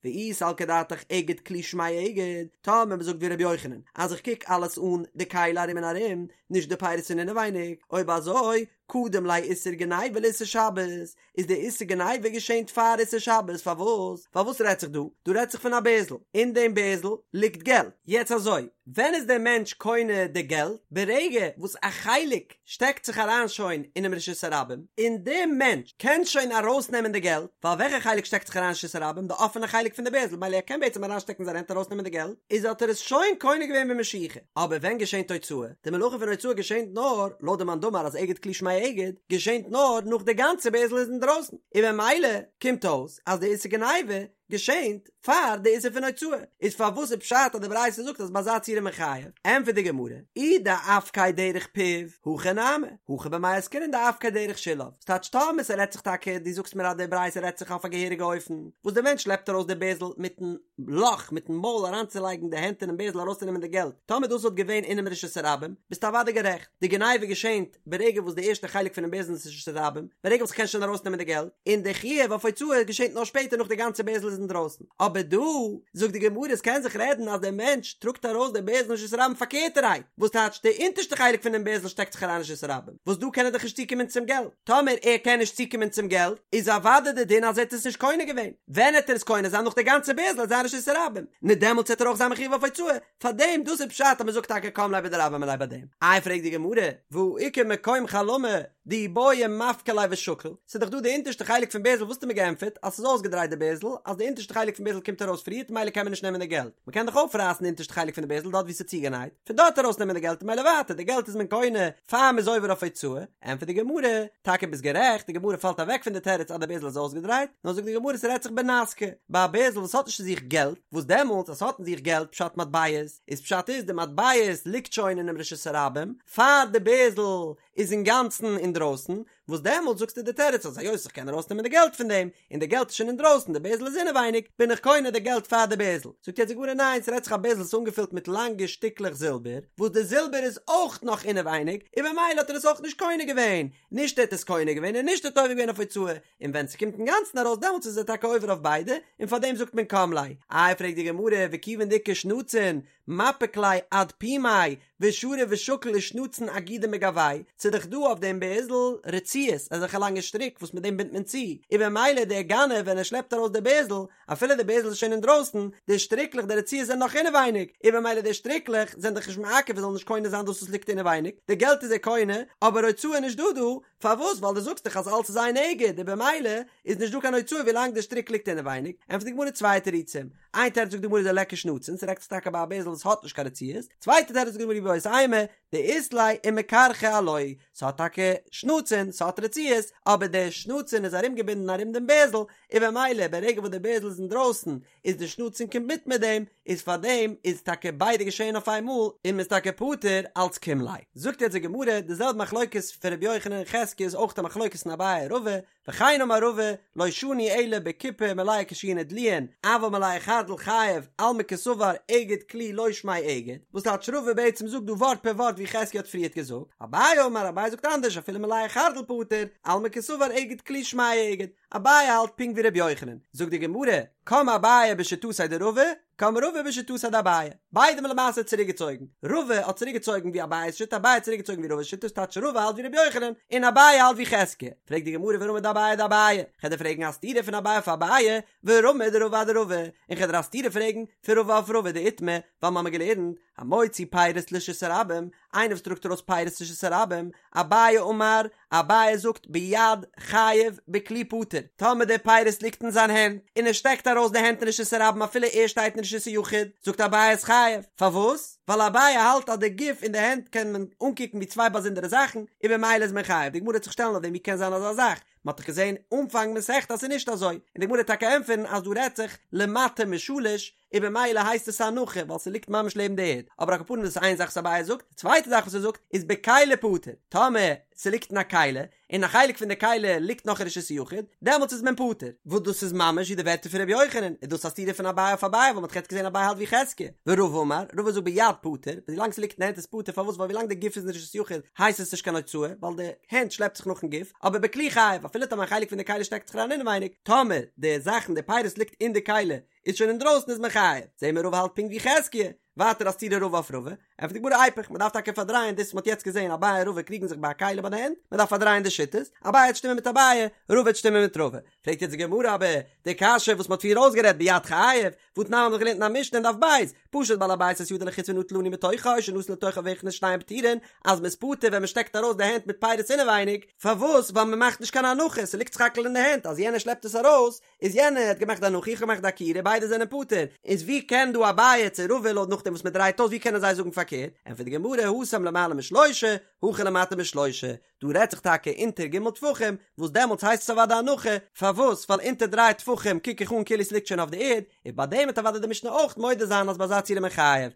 ואי סלקא דעתך אגד כלי שמיה אגד, טאמער מען זאגט ווי רבי יוחנן אז איך קוק אלעס אן די כלי ארום און ארום, נישט די פירות פון אינעווייניג, אויב אזוי קדם ליה איסור גניבה לאיסור שבת, איז די איסור גניבה געשענט פאר איסור שבת, פארוואס? ווייל וואס רעדט זיך דא? דא רעדט זיך פון א בערזל, אין דעם בערזל ליגט געלט, יעצט אזוי, ווען איז דער מענטש קונה די געלט? ברגע וואס א חלק שטעקט זיך אריין שוין אינעם רשות הרבים, און דער מענטש קען שוין ארויסנעמען די געלט, ווייל וועלכע חלק שטעקט זיך אריין אין רשות הרבים? די אפענע חלק פון די בערזל, מילא ער קען בעצם אריינשטעקן זיין הענט ארויסנעמען די געלט, איז האט ער עס שוין קונה געווען במשיכה. אבער ווען געשענט הוצאה? די מלאכה פון הוצאה געשענט נאר, לויט די מאן דאמר אז אגד כלי שמיה אגד, געשענט נאר נאך די גאנצע בערזל איז אינדרויסן, און במילא קומט אויס אז די איסור גניבה געשענט פאר די איסור פון הוצאה, איז פארוואס איז פשט אז די ברייתא זאגט אז ביי אזא ציור איז מען חייב? ענטפערט די גמרא, אי דאפקיה דרך פיו, הכי נמי, הכא במאי עסקינן דאפקיה דרך שוליו, ס'טייטש טאמער ס'רעדט זיך טאקע, דו זאגסט מיר אז די ברייתא רעדט זיך אויף א געהעריגע אופן, וואס די מענטש שלעפט ארויס די בערזל מיטן לאך, מיטן מויל אריינצולייגן די הענט אינעם בערזל ארויסצונעמען די געלט, טאמער דאס וואלט געווען אינעם רשות הרבים, ביסטו אוודאי גערעכט, די גניבה געשענט ברגע וואס די ערשטע חלק פונעם בערזל איז רשות הרבים, ברגע וואס כ'קען שוין ארויסנעמען די געלט, און די חיוב אויף הוצאה געשענט נאר שפעטער נאך די גאנצע בערזל איז אינדרויסן. אבער דא, זאגט די גמרא, עס קען זיך רעדן אז דער מענטש טראגט ארויס די בערזל אין רשות הרבים פארקערטערהייט, וואס טייטש די אונטערשטע חלק פונעם בערזל שטעקט זיך אריין אין רשות הרבים, וואס דא קען ער דאך נישט צוקומען צום געלט. טאמער ער קען נישט צוקומען צום געלט, איז אוודאי די דין אז ער האט עס נישט קונה געווען. ווען העט ער עס קונה זיין נאך די גאנצע בערזל איז אין רשות הרבים, נו דעמאלטס העט ער אויך זיין מחויב אויף הוצאה, פארדעם דאס איז פשט אז מען זאגט טאקע קם ליה בדרבה מיניה ביי דעם. איי פרעגט די גמרא, והא איכא מקום חלמה דאי בעי מפקע ליה ושקיל, ס'איז דאך דא די אונטערשטע חלק פון בערזל וואס האסטו מיר געענטפערט אז ס'איז אויסגעדרייט די בערזל אז די אונטערשטע חלק פון בערזל קומט ארויס פריערט מילא קען מען נישט נעמען די געלט, מען קען דאך אויפרייסן די אונטערשטע חלק פון די בערזל דארט ווי ס'איז צוגענייט, פון דארט ארויס נעמען די געלט און מילא ווייטער די געלט איז מען קונה פאר מ'איז עובר אויף הוצאה, ענטפערט די גמרא, טאקע ביסט גערעכט, די גמרא פאלט אוועק פון די תירוץ אז די בערזל איז אויסגעדרייט, נאר זאגט די גמרא ס'רעדט זיך בנסכא, ביי א בערזל וואס האט נישט אין זיך געלט, וואס דעמאלטס אז ס'האט אין זיך געלט פשט מטבעות, איז פשט איז די מטבעות ליגט שוין אינעם רשות הרבים, פאר די בערזל איז אינגאנצן אינדרויסן, וואס דעמאלטס זאגסטו די תירוץ אז היות איך קען ארויסנעמען די געלט פון דעם, און די געלט איז שוין אינדרויסן די בערזל איז אינעווייניג, בין איך קונה די געלט פאר די בערזל. זאגט יעצט די גמרא ניין ס'רעדט זיך א בערזל וואס איז אנגעפילט מיט לאנגע שטיקלעך זילבער, וואס די זילבער איז אויך נאך אינעווייניג, און במילא האט ער עס אויך נישט קונה געווען, נישט ער האט עס קונה געווען און נישט ער האט עובר געווען אויף הוצאה, און ווען ס'קומט אינגאנצן ארויס דעמאלטס איז ער טאקע עובר אויף ביידע, און פארדעם זאגט מען קם ליה. איי פרעגט די גמרא וכיוון דאיכא שנצין מפיק ליה עד פומיה ושרי ושקיל ושנצין אגידי מגואי, ס'איז דאך דא אויף דעם בערזל רצועות, אזעלכע לאנגע שטריק וואס מיט דעם בינדט מען צו, און במילא דער גנב ווען ער שלעפט ארויס די בערזל, אפילו די בערזל איז שוין אינדרויסן, די שטריקלעך די רצועות זענען נאך אינעווייניג, און במילא די שטריקלעך זענען דאך נישט מעכב ער זאל נישט קונה זיין דאס וואס ליגט אינעווייניג, די געלט איז ער קונה, אבער הוצאה איז נישט דא דא, פארוואס? ווייל דו זאגסט דאך אז אלץ איז איין אגד, און במילא איז נישט דא קיין הוצאה ווילאנג די שטריק ליגט אינעווייניג, ענטפערט די גמרא צוויי תירוצים, איין תירוץ זאגט די גמרא דליכא שנצין, ס'רעדט זיך טאקע ביי א בערזל וואס האט נישט קיין רצועות, צווייטע תירוץ זאגט די גמרא איבעית אימא, דאית ליה ומכרכי עילויה, ס'האט טאקע שנצין, ס'האט רצועות, אבער די שנצין איז ארומגעבינדן ארום דעם בערזל, און במילא ברגע וואס די בערזל איז אינדרויסן איז די שנצין קומט מיט מיט דעם, איז פארדעם איז טאקע ביידע געשעהן אויף איין מאל און מ'איז טאקע פטור אלץ קים ליה. זאגט יעצט די גמרא, די זעלבע מחלוקת פון ר' יוחנן און חזקיה איז אויך א מחלוקת אין אביי און רבא, וכן אמר רבא, לא שנו אלא בקופה מלאה קישואין ודלועין, אבל מלאה חרדל חייב, אלמא קסבר אגד כלי לא שמיה אגד, וואס טייטש רבא בעצם זאגט דא ווארט פער ווארט ווי חזקיה האט פריערט געזאגט, אביי אמר, אביי זאגט אנדערש אפילו מלאה חרדל פטור, אלמא קסבר אגד כלי שמיה אגד, אביי האלט פונקט ווי ר' יוחנן, זאגט די גמרא, קם אביי בשיטתיה דרבא, קם רבא בשיטתיה דאביי, ביידע האבן למעשה צוריקגעצויגן, רבא האט צוריקגעצויגן ווי אביי'ס שיטה, אביי האט צוריקגעצויגן ווי רבא'ס שיטה, ס'טייטש רבא האלט ווי ר' יוחנן, און אביי האלט ווי חזקיה. פרעגט די גמרא ורמי דאביי אדאביי, כ'על דיר פרעגן א סתירה פון אביי אויף אביי, ורמי דרבא אדרבא, און כ'על דיר א סתירה פרעגן פון רבא אויף רבא דאיתמר, ווייל מ'האמיר געלערנט, המוציא פירות לרשות הרבים, איינער וואס טראגט ארויס פירות לרשות הרבים, אביי אמר, אביי זאגט ביד חייב בכלי פטור, טאמער די פירות ליגט אין זיין הענט, און ער שטעקט ארויס די הענט אין רשות הרבים אפילו ער שטייט אין רשות היחיד, זאגט אביי איז חייב, פארוואס? ווייל אביי האלט אז די גוף און די הענט קען מען אנקוקן ווי צוויי באזונדערע זאכן, און במילא איז מען חייב, די גמרא וועט זיך שטעלן אויף דעם ווי קען זיין אזא זאך, מען האט דאך געזען אנפאנג מסכת אז ס'איז נישט אזוי, און די גמרא וועט טאקע ענטפערן אז דא רעדט זיך למטה משלש, און במילא הייסט עס א הנחה ווייל ס'ליגט ממש לעבן די ערד, אבער על כל פנים דאס איז איין זאך וואס אביי זאגט, די צווייטע זאך וואס ער זאגט איז בכלי פטור, טאמער ס'ליגט אין א כלי, און א חלק פון די כלי ליגט נאך אין רשות היחיד, דעמאלטס איז מען פטור, וואס דאס איזממש ווי די ווערטער פון ר' יוחנן, איז דאס א סתירה פון אביי אויף אביי ווייל מ'האט דאך יעצט געזען אביי האלט ווי חזקיה, ורבא אמר, רבא זאגט ביד פטור, ווילאנג ס'ליגט אין די הענט איז פטור, פארוואס ווייל ווילאנג די גוף איז אין רשות היחיד הייסט עס נישט קיין הוצאה, ווייל די הענט שלעפט זיך נאכן גוף, אבער בכלי חייב, אפילו טאמער א חלק פון די כלי שטעקט זיך אריין אינעווייניג, טאמער די זאכן די פירות ליגט אין די כלי איז שוין אינדרויסן איז מען חייב, זעהן מיר רבא האלט פונקט ווי חזקיה, ווייטער א סתירה רבא אויף רבא, ענטפערט די גמרא איפוך, מען דארף טאקע פארדרייען דאס וואס מען האט יעצט געזעהן אביי און רבא קריגן זיך ביי א כלי ביי די הענט, מען דארף פארדרייען די שיטות, אביי וועט שטימען מיט אביי, רבא וועט שטימען מיט רבא, פרעגט יעצט די גמרא אבער די קשיא וואס מען האט פריער אויסגערעדט ביד חייב, והתנן מ'האט דאך געלערנט אין א משנה אין דף ב', פשט בעל הבית את ידו לחוץ ונטל עני מתוכה או שנתן לתוכה והכניס שניהם פטורין, אז מען איז פטור ווען מען שטעקט ארויס די הענט מיט פירות אינעווייניג, פארוואס? ווייל מען מאכט נישט קיין הנחה, ס'ליגט סך הכל אין די הענט, אז יענער שלעפט עס ארויס, איז יענער האט געמאכט די הנחה איך האב געמאכט די עקירה ביידע זענען פטור, איז ווי קען דא אביי צו רבא לויט נאכדעם וואס מען דרייט אויס ווי קענען זיי זאגן פארקערט, ענטפערט די גמרא התם למעלה משלושה, הכא למטה משלושה, דא רעדט זיך טאקע אונטער ג' טפחים, וואס דעמאלטס הייסט עס אוודאי הנחה, פארוואס ווייל אונטער דריי טפחים קוק איך אן כאילו עס ליגט שוין אויף די ערד, און ביי דעם וועט אוודאי די משנה אויך מודה זיין אז ביי אזא ציור איז מען חייב.